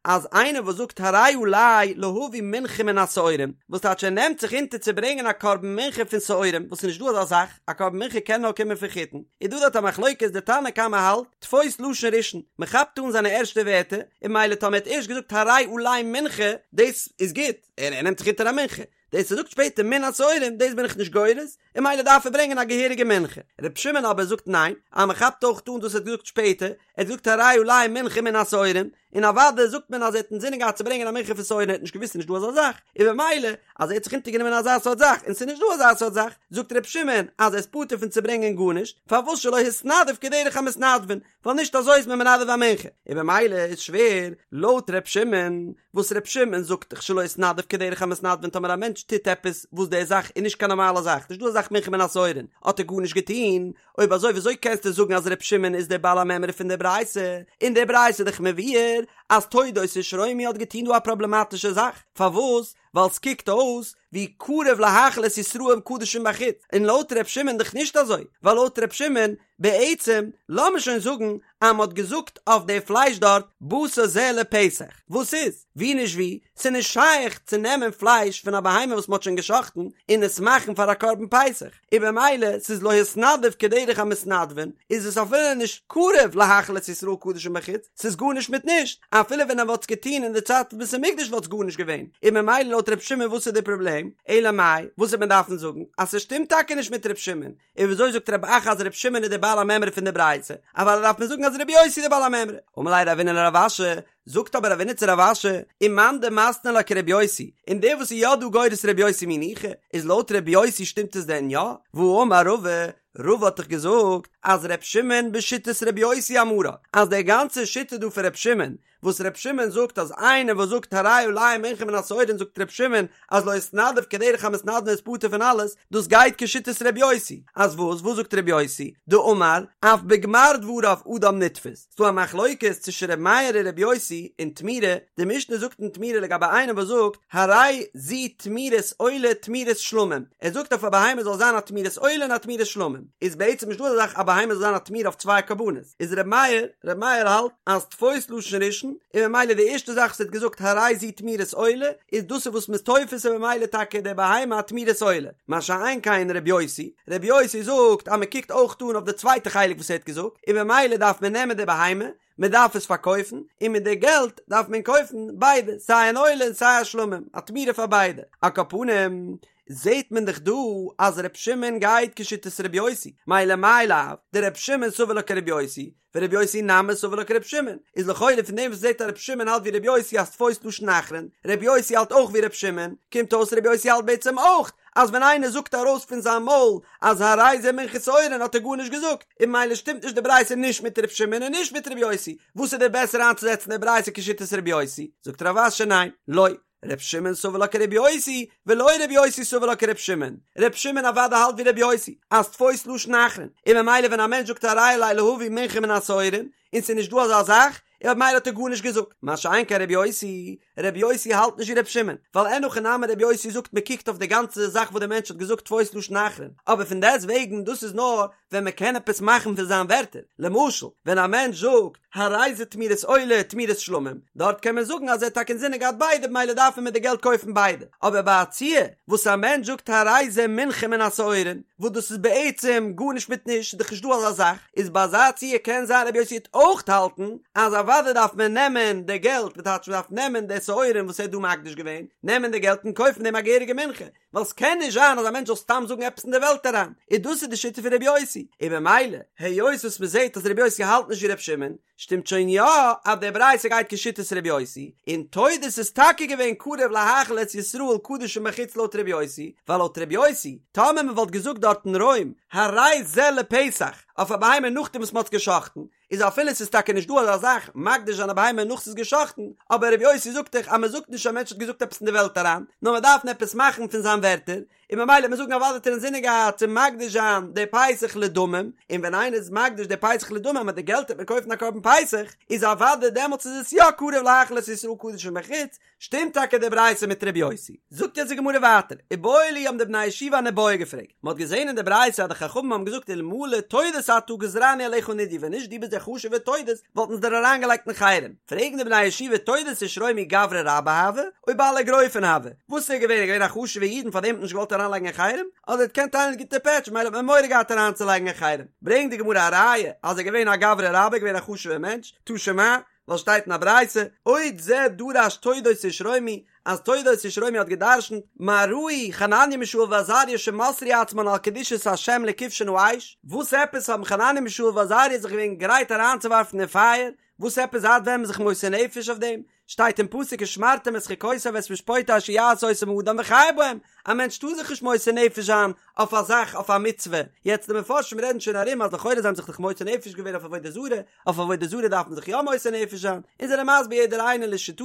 אז איינער וואס זאגט הרי עלי להביא מנחה מן השעורים, וואס טייטש ער נעמט זיך אונטער צו ברענגען א קרבן מנחה פון שעורים, וואס איז נישט דא אזא זאך, א קרבן מנחה קען נאר קומען פון חיטין, איז דא דארט א מחלוקת די תנא קמא האלט, תפוס לשון ראשון, מען כאפט אן זיינע ערשטע ווערטער, און ממילא טאמער ער האט ערשט געזאגט הרי עלי מנחה, דאס איז גוט, ער נעמט זיך אונטער א מנחה, דאס ער זאגט שפעטער מן השעורים דאס בין איך נישט גורס, און ממילא דארף ער ברענגען א געהעריגע מנחה. ר' שמעון אבער זאגט ניין, אז מען כאפט אויך אן דאס ער האט געזאגט שפעטער, ער האט געזאגט הרי עלי מנחה מן השעורים, און אוודאי זאגט מען אז ער האט אינזינען געהאט צו ברענגען א מנחה פון שעורים ער האט נישט געוואוסט ס'נישט דא אזא זאך, און במילא אז ער האט זיך אונטערגענומען אזא סארט זאך און ס'איז נישט דא אזא סארט זאך, זאגט ר' שמעון אז ער איז פטור פון צו ברענגען גארנישט, פארוואס שלא התנדב כדרך המתנדבין, ווייל נישט אזוי איז מען מנדב א מנחה, און במילא איז שווער לויט ר' שמעון, וואס ר' שמעון זאגט דאך שלא התנדב כדרך המתנדבין טאמער א מענטש טוט עפעס וואס די זאך איז נישט קיין נארמאלע זאך, נישט דא אזא זאך מנחה מן השעורין, האט ער גארנישט געטון, אויב אזוי וויאזוי קענסטו זאגן אז ר' שמעון איז דער בעל המימרא פון דער ברייתא, אין דער ברייתא איז דאך מבואר אז תודוס איש רומי האט געטון דא א פראבלעמאטישע זאך, פארוואס? ווייל ס'קוקט אויס ווי קרוב להאכיל את ישראל קדשים בחוץ, און לויט ר' שמעון דאך נישט אזוי, ווייל לויט ר' שמעון, בעצם, לאמיר שוין זאגן אז מ'האט געזאגט אויף די פלייש דארט בשר זה לפסח, וואס איז? ווי נישט ווי, ס'איז נישט שייך צו נעמען פלייש פון א בהמה וואס מ'האט שוין גע'שחט'ן און עס מאכן פאר א קרבן פסח, און במילא ס'איז לא התנדב כדרך המתנדבין, איז עס אפילו נישט קרוב להאכיל את ישראל קדשים בחוץ, ס'איז גארנישט מיט נישט, אפילו ווען ער וואלט עס געטון אין די צייט פון בית המקדש וואלט עס גארנישט געווען, און ממילא לויט ר' שמעון וואס איז די פראבלעם? אלא מאי, וואס וועט מען דארפן זאגן? אז ס'שטימט טאקע נישט מיט ר' שמעון, און וויאזוי זאגט רב אחא אז ר' שמעון איז דער בעל המימרא פון די ברייתא? אוודאי דארף מען זאגן אז ר' יוסי איז דער בעל המימרא. אמר ליה רבינא לרב אשי, זאגט אבער רבינא צו רב אשי, ומאן דמתני לה כר' יוסי, און דער וואס איז יא דא גורס ר' יוסי מי ניחא, איז לויט ר' יוסי שטימט עס דען יא? והאמר רבא, רבא האט דאך געזאגט אז ר' שמעון בשיטת ר' יוסי אמרה, אז די גאנצע שיטה דא פון ר' שמעון. וואס ר' שמעון זאגט אז איינער וואס זאגט הרי עלי מנחה מן השעורין זאגט ר' שמעון אז לא התנדב כדרך המתנדבין איז פטור פון אלעס, דאס גייט כשיטת ר' יוסי, אז וואס? וואס זאגט ר' יוסי? דאמר, אף בגמר דבריו אדם נתפס, ס'דא א מחלוקת צווישן ר' מאיר און ר' יוסי אין תמורה, די משנה זאגט אין תמורה לגבי איינער וואס זאגט הרי זו תמורת עולה תמורת שלמים, ער זאגט אויף א בהמה זאל זיין א תמורת עולה און א תמורת שלמים, איז בעצם נישטא אזא זאך א בהמה זאל זיין א תמורה אויף צוויי קרבנות, איז ר' מאיר, ר' מאיר האלט אז תפוס לשון ראשון, און ממילא די ערשטע זאך וואס ער האט געזאגט הרי זו תמורת עולה, איז דאס איז וואס מ'איז תופס און ממילא טאקע די בהמה א תמורת עולה, מה שאין כן ר' יוסי, ר' יוסי זאגט אז מ'קוקט אויך אן אויף די צווייטע חלק וואס ער האט געזאגט, און ממילא דארף מען נעמען די בהמה, מען דארף עס פארקויפן, און מיט די געלט דארף מען קויפן ביידע, סיי אן עולה און סיי א שלמים, א תמורה פאר ביידע. על כל פנים, זעט מען דאך דא אז ר' שמעון גייט כשיטת ר' יוסי, מילא מאי לאו דר' שמעון סבר לה כר' יוסי, ור' יוסי נמי סבר לה כר' שמעון, איז לכאורה פון דעם וואס מ'זעט אז ר' שמעון האלט ווי ר' יוסי אז תפוס לשון אחרון, ר' יוסי האלט אויך ווי ר' שמעון, קומט אויס ר' יוסי האלט בעצם אויך אז ווען איינער זאגט ארויס פון זיין מויל אז הרי זה מנחת שעורין האט ער גארנישט געזאגט, און ממילא שטימט נישט די ברייתא נישט מיט ר' שמעון און נישט מיט ר' יוסי, וואס איז דיר בעסער איינצוזעצן די ברייתא כשיטת ר' יוסי? זאגט רב אשי ניין, לא, ר' שמעון סבר לה כר' יוסי, ולא ר' יוסי סבר לה כר' שמעון, ר' שמעון אוודאי האלט ווי ר' יוסי, אז תפוס לשון אחרון, און ממילא ווען א מענטש זאגט הרי עלי להביא מנחה מן השעורין, און ס'איז נישט דא אזא זאך, און ממילא האט ער גארנישט געזאגט, מה שאין כן ר' יוסי, ר' יוסי האלט נישט ווי ר' שמעון, ווייל אין הכי נמי ר' יוסי זאגט מען קוקט אויף די גאנצע זאך וואס דער מענטש האט געזאגט תפוס לשון אחרון, אבער פון דעסט וועגן דאס איז נאר ווען מען קען עפעס מאכן פון זיין ווערטער, למשל ווען א מענטש זאגט הרי זה תמורת עולה תמורת שלמים, דארט קען מען זאגן אז ער האט טאקע אינזינען געהאט ביידע במילא דארף מען מיט די געלט קויפן ביידע, אבער ביי א ציור וואס א מענטש זאגט הרי זה מנחה מן השעורין, וואס דאס איז בעצם גארנישט מיט נישט, ס'איז דאך נישט דא אזא זאך, איז ביי אזא ציור קען זיין רבי יוסי וועט אויך האלטן אז אוודאי דארף מען נעמען די געלט, וואס טייטש מ'דארף נעמען די שעורים וואס ער האט דא מקדיש געווען, נעמען די געלט און קויפן דעם א געהעריגע מנחה, ווייל ס'קען נישט זיין אז א מענטש זאל סתם זאגן עפעס אין די וועלט אריין, און דאס איז די שיטה פון רבי יוסי, און במילא היות וואס מ'זעט אז רבי יוסי האלט נישט ווי רבי שמעון, שטימט שוין יא אז די ברייתא גייט כשיטת רבי יוסי, און תודוס איז טאקע געווען קרוב להאכיל את ישראל קדשים בחוץ לויט רבי יוסי, ווייל לויט רבי יוסי, טאמער מען וואלט געזאגט דארט אין רוים הרי זה לפסח אויף א בהמה נאכדעם וואס מען האט עס גע'שחט'ן, איז אפילו ס'איז טאקע נישט דא אזא זאך מקדיש זיין א בהמה נאך ס'איז גע'שחט'ן, אבער רבי יוסי זאגט דאך אז מען זאגט נישט א מענטש האט געזאגט עפעס אין די וועלט אריין, נאר מען דארף עפעס מאכן פון זיין ווערטער, און ממילא וועט מען זאגן אוודאי האט ער אינזינען געהאט צו מקדיש זיין די פסח לדמים, און ווען איינער איז מקדיש די פסח לדמים מיט די געלט וועט מען קויפן א קרבן פסח, איז אוודאי דעמאלטס איז עס יא קרוב להאכיל את ישראל קדשים בחוץ, שטימט טאקע די ברייתא מיט ר' יוסי. זאגט יעצט די גמרא ווייטער, איבעיא להו האבן די בני הישיבה אן איבעיא געפרעגט, מען האט געזען אין די ברייתא אז די חכמים האבן געזאגט אלמלא תודוס אתה גזרנו עליך נידוי ווען נישט דו ביסט דער חשוב'ער תודוס וואלטן אונז דיר אריינגעלייגט אין חרם, פרעגן די בני הישיבה תודוס איש רומי גברא רבה הוה, או בעל אגרופין הוה, וואס איז ער געווען? ער געווען א חשוב'ער איד און פאר דעם האט מען נישט געוואלט אריינלייגן אין חרם? אדער ער האט געקענט טיילן גוטע פעטש ממילא האט מען מורא געהאט אריינצולייגן אין חרם? ברענגט די גמרא א ראיה אז ער איז געווען א גברא רבה, געווען א חשוב'ער מענטש, תא שמע, ווייל שטייט אין א ברייתא, עוד זה דרש תודוס איש רומי, אז תודוס איש רומי האט גע'דרש'נט, מה ראו חנניה מישאל ועזריה שמסרו עצמן על קדושת השם לכבשן האש, וואס עפעס האבן חנניה מישאל ועזריה זיך געווען גרייט אריינצואווארפן אין פייער, וואס עפעס זייט ווען איז מען זיך מוסר נפש אויף דעם? שטייט אין פסוק ושמרתם את חוקותי ואת משפטי אשר יעשה אותם האדם וחי בהם, א מענטש טאר זיך נישט מוסר נפש זיין אויף א זאך אויף א מצוה, יעצט די מפרשים רעדן שוין ארום אז לכאורה זיי האבן זיך דאך מוסר נפש געווען אויף עבודה זרה, אויף עבודה זרה דארף מען זיך יא מוסר נפש זיין, און זענען מסביר יעדער איינער לשיטתו,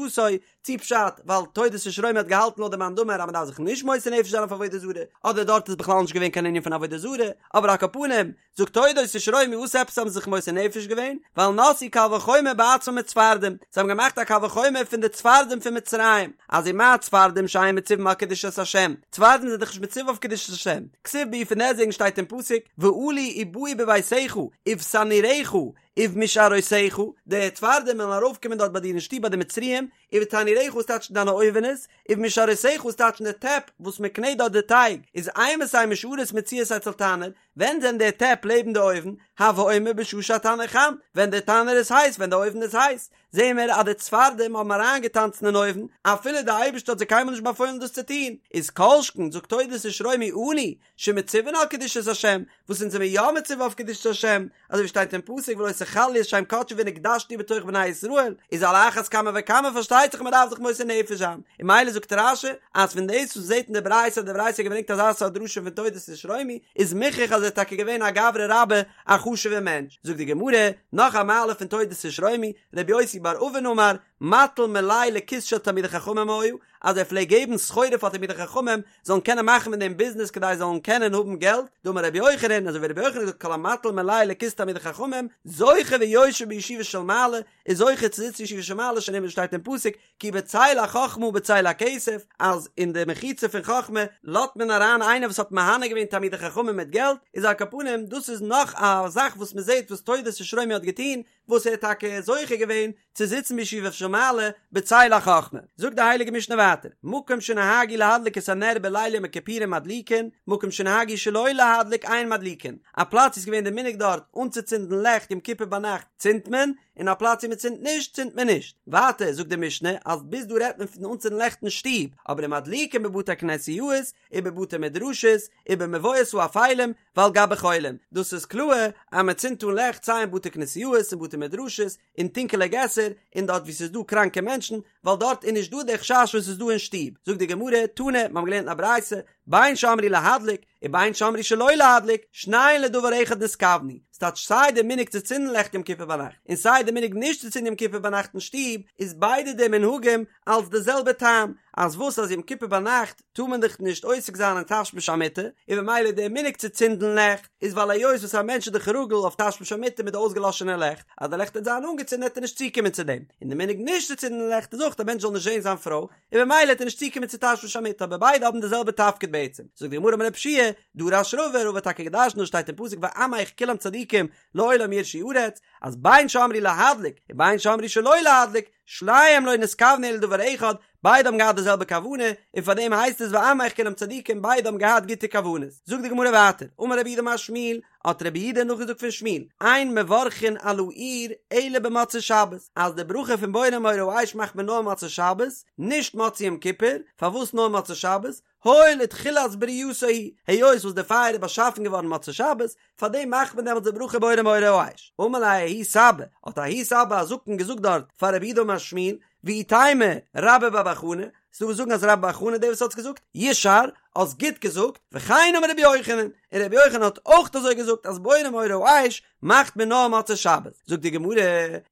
צי פשט ווייל תודוס איש רומי האט געהאלטן לויט די מאן דאמר אז מען דארף זיך נישט מוסר נפש זיין אויף עבודה זרה, אדער דארט איז בכלל נישט געווען קיין ענין פון עבודה זרה, אבער על כל פנים, זאגט תודוס איש רומי וואס עפעס האבן זיי זיך מוסר נפש געווען? ווייל נשאו קל וחומר בעצמם מצפרדעים, זיי האבן געמאכט א קל וחומר פון די צפרדעים פון מצרים, אז ומה צפרדעים שאין מצווים על קדושת השם, צפרדעים זענען דאך נישט מצווה אויף קדושת השם, כתיב בהו פון דעסטוועגן שטייט אין פסוק ועלו ובאו בביתך ובתנוריך ובמשארותיך, די צפרדעים וועלן ארויפקומען דארט ביי דיר אין שטוב ביי די מצריים, ובתנוריך וואס טייטש דיינע אויווענעס, ובמשארותיך וואס טייטש די טעפ וואס מען קנעט דארט די טייג, איז אימתי משארות מצויות אצל תנור, ווען זענען די טעפ לעבן די אויוון, הוי אומר בשעה שהתנור חם, ווען די תנור איז הייס, ווען די אויוון איז הייס, זעהן מיר אז די צפרדעים האבן אריינגעטאנצן אין אויוון, אפילו די אייבערשטער האט זיי קיינמאל נישט באפוילן דאס צו טון, איז כל שכן, זאגט תודוס איש רומי אנו, שמצווין על קדושת השם, וואס אונז זעמיר יא מצווה אויף קדושת השם, אזוי ווי שטייט אין פסוק ולא תחיה. ס'חל להיות שם קדשי ונקדשתי בתוך בני ישראל, איז על אחת כמה וכמה פארשטייט זיך מ'דארף זיך מוסר נפש זיין, און ממילא זאגט רש"י אז פון דאס וואס מ'זעט אין די ברייתא אז די ברייתא האט געברענגט אזא סארט דרשה פון תודוס איש רומי איז מוכרח אז ער איז טאקע געווען א גברא רבה א חשוב'ער מענטש, זאגט די גמרא נאך א מעלה פון תודוס איש רומי, רבי יוסי בר אבין אמר, מטיל מלאי לכיס של תלמידי חכמים היה, אז ער פלעגט געבן סחורה פאר תלמידי חכמים זאלן קענען מאכן מיט דעם ביזנעס כדי זיי זאלן קענען האבן געלט, דאמר רבי יוחנן, אזוי ווי רבי יוחנן האט געזאגט כל המטיל מלאי לכיס תלמידי חכמים, זוכה ויושב בישיבה של מעלה, איז זוכה צו זיצן אין ישיבה של מעלה שנאמר שטייט אין פסוק, כי בצל החכמה ובצל הכסף, אז אין די מחיצה פון חכמה לאזט מען אריין איינער וואס האט מהנה געווען תלמידי חכמים מיט געלט, איז על כל פנים דאס איז נאך א זאך וואס מען זעט וואס תודוס איש רומי האט געטון, וואס ער האט טאקע זוכה געווען צו זיצן בישיבה של מעלה בצל החכמה. זאגט די הייליגע משנה ווייטער, מקום שנהגו להדליק את הנר בליל יום הכיפורים מדליקין, מקום שנהגו שלא להדליק אין מדליקין, א פלאץ איז געווען די מנהג דארט אנצוצינדן לעכט יום כיפור ביינאכט צינדט מען, און א פלאץ ווי מען צינדט נישט צינדט מען נישט. ווייטער זאגט די משנה אז ביז דא רעדט מען פון אנצינדן לעכט אין שטוב, אבער ומדליקין בבתי כנסיות ובבתי מדרשות ובמבואות האפלים ועל גבי חולים, דאס איז קלאר אז מען צינדט אן לעכט סיי אין בתי כנסיות און בתי מדרשות אין טונקעלע געסער און דארט וואו ס'איז דא קראנקע מענטשן, ווייל דארט איז נישט דא די חשש וואס איז דא אין שטוב, זאגט די גמרא, תנא, מיר האבן געלערנט אין א ברייתא, בין שאמרו להדליק, ובין שאמרו שלא להדליק, שניהן לדבר אחד נתכוונו, ס'טייטש סיי די מנהג צו צינדן לעכט יום כיפור ביינאכט, און סיי די מנהג נישט צו צינדן יום כיפור ביינאכט אין שטוב, איז ביידע די מנהגים אלס די זעלבע טעם, אז וואס אז יום כיפור ביינאכט טאר מען דאך נישט עוסק זיין אין תשמיש המיטה, און במילא דער מנהג צו צינדן לעכט איז ווייל היות וואס א מענטש איז דאך רגיל אויף תשמיש המיטה מיט די אויסגעלאשענע לעכט, אז די לעכט וועט זיין אנגעצינדן וועט ער נישט צוקומען צו דעם, און די מנהג נישט צו צינדן לעכט איז אויך א מענטש זאל נישט זען זיין פרוי, און במילא וועט ער נישט צוקומען צו תשמיש המיטה, אבער ביידע האבן די זעלבע תפקיד בעצם. זאגט די גמרא אמר רב יהושע, דרש רבא, רבא האט טאקע געדרשנט דאס שטייט אין פסוק ועמך כולם צדיקים לעולם יירשו ארץ, אז בין שאמרו להדליק ובין שאמרו שלא להדליק, שניהם לא נתכוונו אלא לדבר אחד, ביידע האבן געהאט די זעלבע כוונה, און פאר דעם הייסט עס ועמך כולם צדיקים, ביידע האבן געהאט גוטע כוונות. זאגט די גמרא ווייטער, אמר רב יהודה אמר שמואל, האט רב יהודה נאכגעזאגט פון שמואל, אין מברכין על האור אלא במוצאי שבת, אז די ברכה פון בורא מאורי האש מאכט מען נאר מוצאי שבת, נישט מוצאי יום כיפור, פארוואס נאר מוצאי שבת? הואיל ותחילת ברייתו הוא, היות וואס די פייער איז באשאפן געווארן מוצאי שבת, פאר דעם מאכט מען דעמאלטס די ברכה בורא מאורי האש. אמר ליה ההוא סבא, האט ההוא סבא א זקן געזאגט דארט פאר רב יהודה אמר שמואל, ואי תימא רבה בר בר חנה, ס'דא וואס זאגן אז רבה בר בר חנה דער וואס האט עס געזאגט, ישאר, האסט גוט געזאגט, וכן אמר רבי יוחנן, און רבי יוחנן האט אויך אזוי געזאגט אז בורא מאורי האש מאכט מען נאר מוצאי שבת, זאגט די גמרא,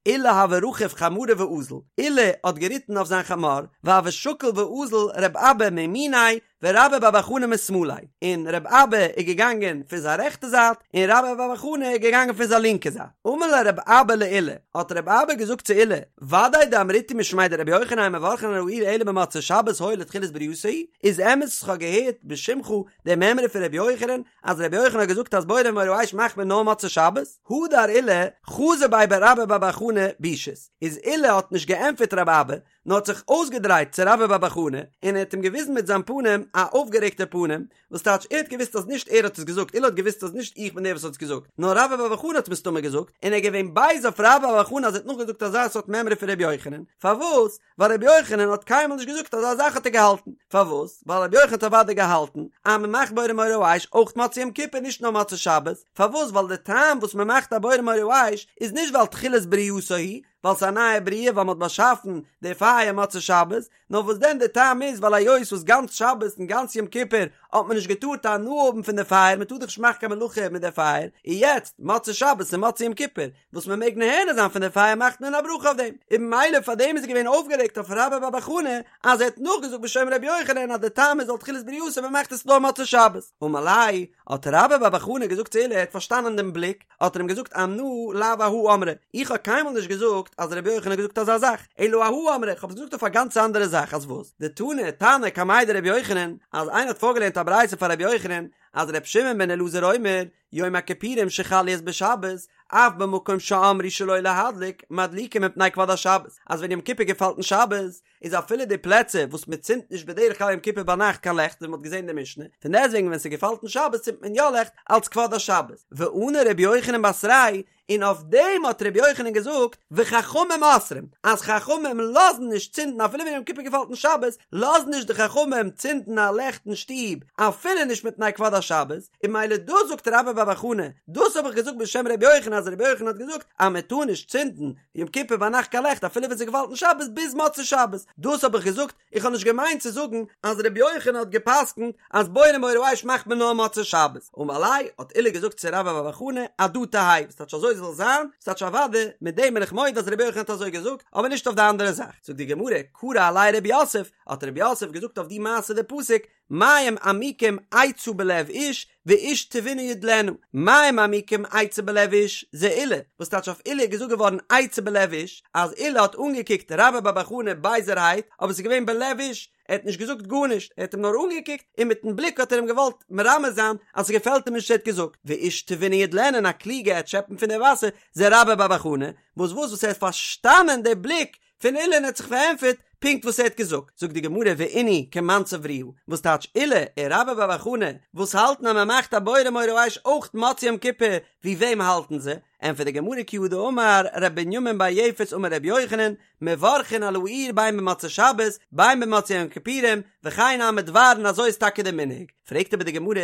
עולא הוה רכיב חמרא ואזיל, עולא האט געריטן אויף זיין חמור, והוה שקיל ואזיל רב אבא מימיניה ורבה בר בר חנה משמאליה, און רב אבא איז געגאנגען פון זיין רעכטע זייט, און רבה בר בר חנה איז געגאנגען פון זיין לינקע זייט. אמר ליה רב אבא לעולא, האט רב אבא געזאגט צו עולא, ודאי דאמריתו משמיה דרבי יוחנן אין מברכין על האור אלא במוצאי שבת הואיל ותחילת ברייתו הוא, איז אמת וואס כ'האב געהערט בשמך די מימרא פון רבי יוחנן, אז רבי יוחנן האט געזאגט אז בורא מאורי האש מאכט מען נאר מוצאי שבת, הדר עולא חזא ביה ברבה בר בר חנה בישית, איז עולא האט נישט געענטפערט רב אבא, נאר האט זיך אויסגעדרייט צו רבה בר בר חנה, און ער האט אים געוויזן מיט זיין פנים א אויפגערעגטע פנים, וואס טייטש ער האט געוואוסט אז נישט ער האט עס געזאגט, עולא האט געוואוסט אז נישט איך בין דער וואס האט עס געזאגט, נאר רבה בר בר חנה האט מסתמא געזאגט, און ער איז געווען בייז אויף רבה בר בר חנה אז ער האט נאכגעזאגט אזא סארט מימרא פון רבי יוחנן, פארוואס? ווייל רבי יוחנן האט קיינמאל נישט געזאגט אזא זאך האט ער געהאלטן, פארוואס? ווייל רבי יוחנן האט אוודאי געהאלטן אז מען מאכט בורא מאורי האש אויך מוצאי יום כיפור נישט נאר מוצאי שבת, פארוואס? ווייל די טעם וואס מען מאכט א בורא מאורי האש איז נישט ווייל תחילת ברייתו הוא, ווייל ס'איז א נייע בריאה ווייל מען האט באשאפן די פייער מוצאי שבת, נאר וואס דען די טעם איז ווייל היות וואס גאנץ שבת און גאנץ יום כיפור האט מען נישט געטארט הנאה האבן פון די פייער מען טאר דאך נישט מאכן קיין מלאכה מיט די פייער, און יעצט מוצאי שבת און מוצאי יום כיפור וואס מען מעג נהנה זיין פון די פייער מאכט מען א ברכה אויף דעם, און ממילא פאר דעם איז ער געווען אויפגערעגט אויף רבה בר בר חנה אז ער האט נאכגעזאגט בשם רבי יוחנן אז די טעם איז ווייל תחילת ברייתו מען מאכט עס נאר מוצאי שבת, אמר ליה האט רבה בר בר חנה געזאגט צו עולא ער האט פארשטאנען דעם בליק, האט ער אים געזאגט אנא לאו אהא אמרי, איך האב קיינמאל נישט געזאגט אז רבי יוחנן האט געזאגט אזא זאך, אלא אהא אמרי, איך האב עס געזאגט אויף א גאנץ אנדערע זאך, אז וואס? דתני תנא קמיה דרבי יוחנן, אז איינער האט פארגעלערנט א ברייתא פאר רבי יוחנן, אז ר' שמעון בן אלעזר אומר, יום הכיפורים שחל להיות בשבת, אף במקום שאמרו שלא להדליק, מדליקין מפני כבוד השבת, אז ווען יום כיפור געפאלט אין שבת, איז אפילו די פלעצער וואס מען צינדט נישט בדרך כלל יום כיפור ביינאכט קיין לעכט ווי מען האט געזען אין די משנה, פון דעסטוועגן ווען ס'געפאלט אין שבת צינדט מען יא לעכט אלץ כבוד השבת. וענה ר' יוחנן בתריה און אויף דעם האט ר' יוחנן געזאגט וחכמים אוסרים, אז חכמים לאזן נישט צינדן אפילו ווען יום כיפור געפאלט אין שבת, לאזן נישט די חכמים צינדן א לעכט אין שטוב אפילו נישט מפני כבוד השבת, און ממילא דאס זאגט רבה בר בר חנה, דאס האב איך געזאגט בשם ר' יוחנן אז ר' יוחנן האט געזאגט אז מען טאר נישט צינדן יום כיפור ביינאכט קיין לעכט אפילו ווען ס'געפאלט אין שבת ביז מוצאי שבת, דאס האב איך געזאגט, איך האב נישט געמיינט צו זאגן אז ר' יוחנן האט גע'פסק'נט אז בורא מאורי האש מאכט מען נאר מוצאי שבת, אמר ליה האט עולא געזאגט צו רבה בר בר חנה הדא תהא, וואס טייטש אזוי זאל זיין, וואס טייטש אוודאי, מיט דעם בין איך מודה אז ר' יוחנן האט אזוי געזאגט, אבער נישט אויף די אנדערע זאך, זאגט די גמרא, קרא עליה רב יוסף, האט רב יוסף געזאגט אויף די מעשה די פסוק, מים עמוקים עצה בלב איש ואיש תבונה ידלנה, מים עמוקים עצה בלב איש, זה עולא, וואס טייטש אויף עולא איז געזאגט געווארן עצה בלב איש, אז עולא האט אנגעקוקט רבה בר בר חנה בייזערהייט, אבער ס'איז געווען בלב איש, ער האט נישט געזאגט גארנישט, ער האט אים נאר אנגעקוקט, און מיטן בליק האט ער אים געוואלט מרמז זיין אז ס'געפעלט אים נישט וואס ער האט געזאגט, ואיש תבונה ידלנה און א קלוגע עט שעפן פון די וואסער, זה רבה בר בר חנה, וואס וואס וואס ער האט פארשטאנען די בליק פון עולא און האט זיך פארענטפערט פונקט וואס ער האט געזאגט, זאגט די גמרא ואינהו כמאן סברוה, וואס טייטש עולא און רבה בר בר חנה וואס האלטן אז מען מאכט א בורא מאורי האש אויך מוצאי יום כיפור, ווי וועם האלטן זיי? ענטפערט די גמרא כי הא דאמר ר' בנימין בר יפת אמר ר' יוחנן, מברכין על האור בין במוצאי שבת בין במוצאי יום כיפורים, וכן נמי דבר און אזוי איז טאקע די מנהג, פרעגט אבער די גמרא,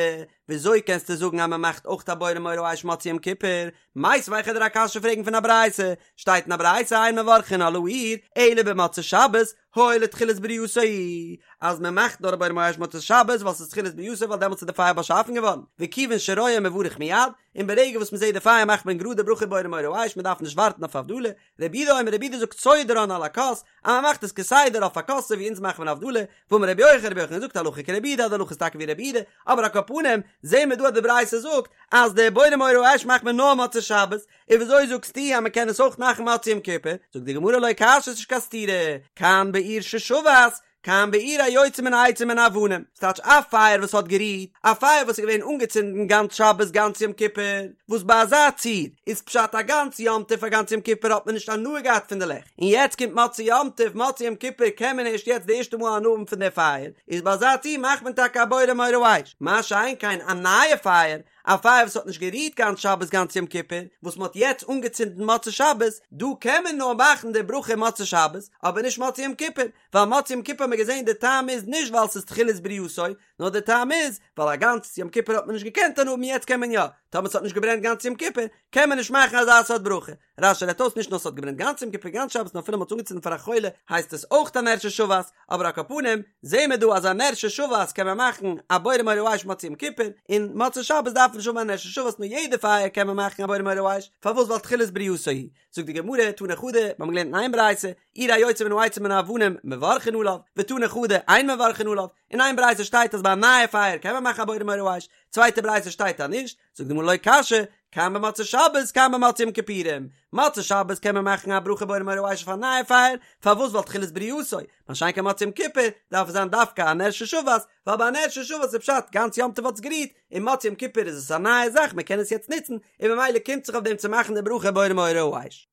וויאזוי קענסטו זאגן אז מען מאכט אויך א בורא מאורי האש מוצאי יום כיפור, מיתיבי וועל איך דיר א קשיא פרעגן פון א ברייתא, שטייט אין א ברייתא אין מברכין על האור אלא במוצאי שבת, הואיל ותחילת בריאתו הוא, אז מען מאכט נאר א בורא מאורי האש מוצאי שבת ווייל ס'איז תחילת בריאתו ווייל דעמאלטס איז די פייער באשאפן געווארן, וכיוון שרואה מברך מיד, און ברגע וואס מען זעט די פייער מאכט מען גראד די ברכה בורא מאורי האש מען דארף נישט ווארטן אויף הבדלה, רבי יהודה אומר רבי יהודה זאגט סודרן על הכוס, אז מען מאכט עס כסדר אויף א כוס אזוי ווי אונז מאכן מיר הבדלה, ואמר רבי יוחנן רבי יוחנן זאגט הלכה כרבי יהודה אז די הלכה איז טאקע ווי רבי יהודה, אבער על כל פנים זעהן מיר דא אז די ברייתא זאגט אז די בורא מאורי האש מאכט מען נאר מוצאי שבת, און וויאזוי זאגסטו אז מען קען עס אויך מאכן מוצאי יום כיפור? זאגט די גמרא לא קשיא ס'נישט קיין סתירה, כאן באור ששבת, כאן באור היוצא מן העצים ומן האבנים, ס'טייטש א פייער וואס האט גערוהט, א פייער וואס איז געווען אנגעצינדן גאנץ שבת גאנץ יום כיפור, וואס ביי אזא ציור איז פשט א גאנץ יום טוב א גאנץ יום כיפור האט מען נישט הנאה געהאט פון די לעכט, און יעצט קומט מוצאי יום טוב מוצאי יום כיפור קען מען ערשט יעצט די ערשטע מאל הנאה האבן פון די פייער, איז ביי אזא ציור מאכט מען טאקע א בורא מאורי האש, מה שאין כן א נייע פייער, א פייער וואס האט נישט גערוהט גאנץ שבת גאנץ יום כיפור, וואס מען האט יעצט אנגעצינדן מוצאי שבת, דא קען מען נאר מאכן די ברכה מוצאי שבת, אבער נישט מוצאי יום כיפור, ווייל מוצאי יום כיפור האט מען געזען די טעם איז נישט ווייל ס'איז תחילת בריאתו, נאר די טעם איז ווייל א גאנץ יום כיפור האט מען נישט געקענט הנאה האבן יעצט קען מען יא, טאמער ס'האט נישט געברענט גאנץ יום כיפור קען מען נישט מאכן אזא סארט ברכה. רש"י רעדט אויס נישט נאר ס'האט געברענט גאנץ יום כיפור גאנץ שבת נאר אפילו מ'האט עס אנגעצינדן פאר א חולה הייסט עס אויך א נר ששבת, אבער על כל פנים זעהן מיר דא אז א נר ששבת קען מען מאכן א בורא מאורי האש מוצאי יום כיפור, און מוצאי שבת דארף מען נישט האבן א נר ששבת נאר יעדע פייער קען מען מאכן א בורא מאורי האש, פארוואס ווייל תחילת בריאתו הוא. זאגט די גמרא, תני חדא, מיר האבן געלערנט אין איין ברייתא, אור היוצא מן העצים ומן האבנים מברכין עליו, ותני חדא, אין מברכין עליו, אין איין ברייתא שטייט אז ביי א נייע פייער קען מען מאכן א בורא מאורי האש, צווייטע ברייתא שטייט אז נישט, זאגט די גמרא לא קשיא, כאן במוצאי שבת כאן במוצאי יום כיפורים, מוצאי שבת קען מען מאכן א ברכה בורא מאורי האש אויף א נייע פייער, פארוואס ווייל תחילת בריאתו, מה שאין כן מוצאי יום כיפור דארף עס זיין דווקא א נר ששבת, ווייל ביי א נר ששבת איז פשט גאנץ יום טוב האט עס גערוהט, און מוצאי יום כיפור איז עס א נייע זאך מען קען עס יעצט נוצן, און ממילא קומט זיך אויף דעם צו מאכן די ברכה בורא מאורי האש.